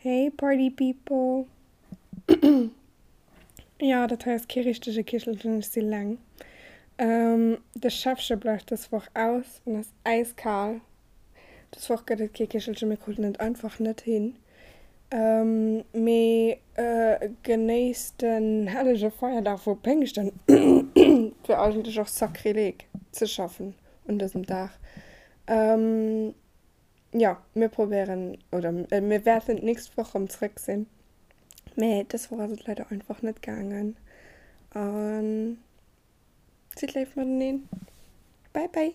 Hey Party People! Jo, dat hei ass kee richtege Kichelchen, ech si leng. De Schäffche bleift dës Woch aus an ass äiskal. Dës Woch gëtt et kee Kichelchen, mir kruten et einfach net hin. Mee genéisst den hellege Feierdag vu Péngschten. Et wier eigentlech och Sakrileg ze schaffen un dësem Dag. Jo, mir probéieren, oder mir wäerten d'nächst Woch erëm zréck sinn, mee dës Woch ass et leider einfach net gaangen. A sidd léif mateneen. Bye bye!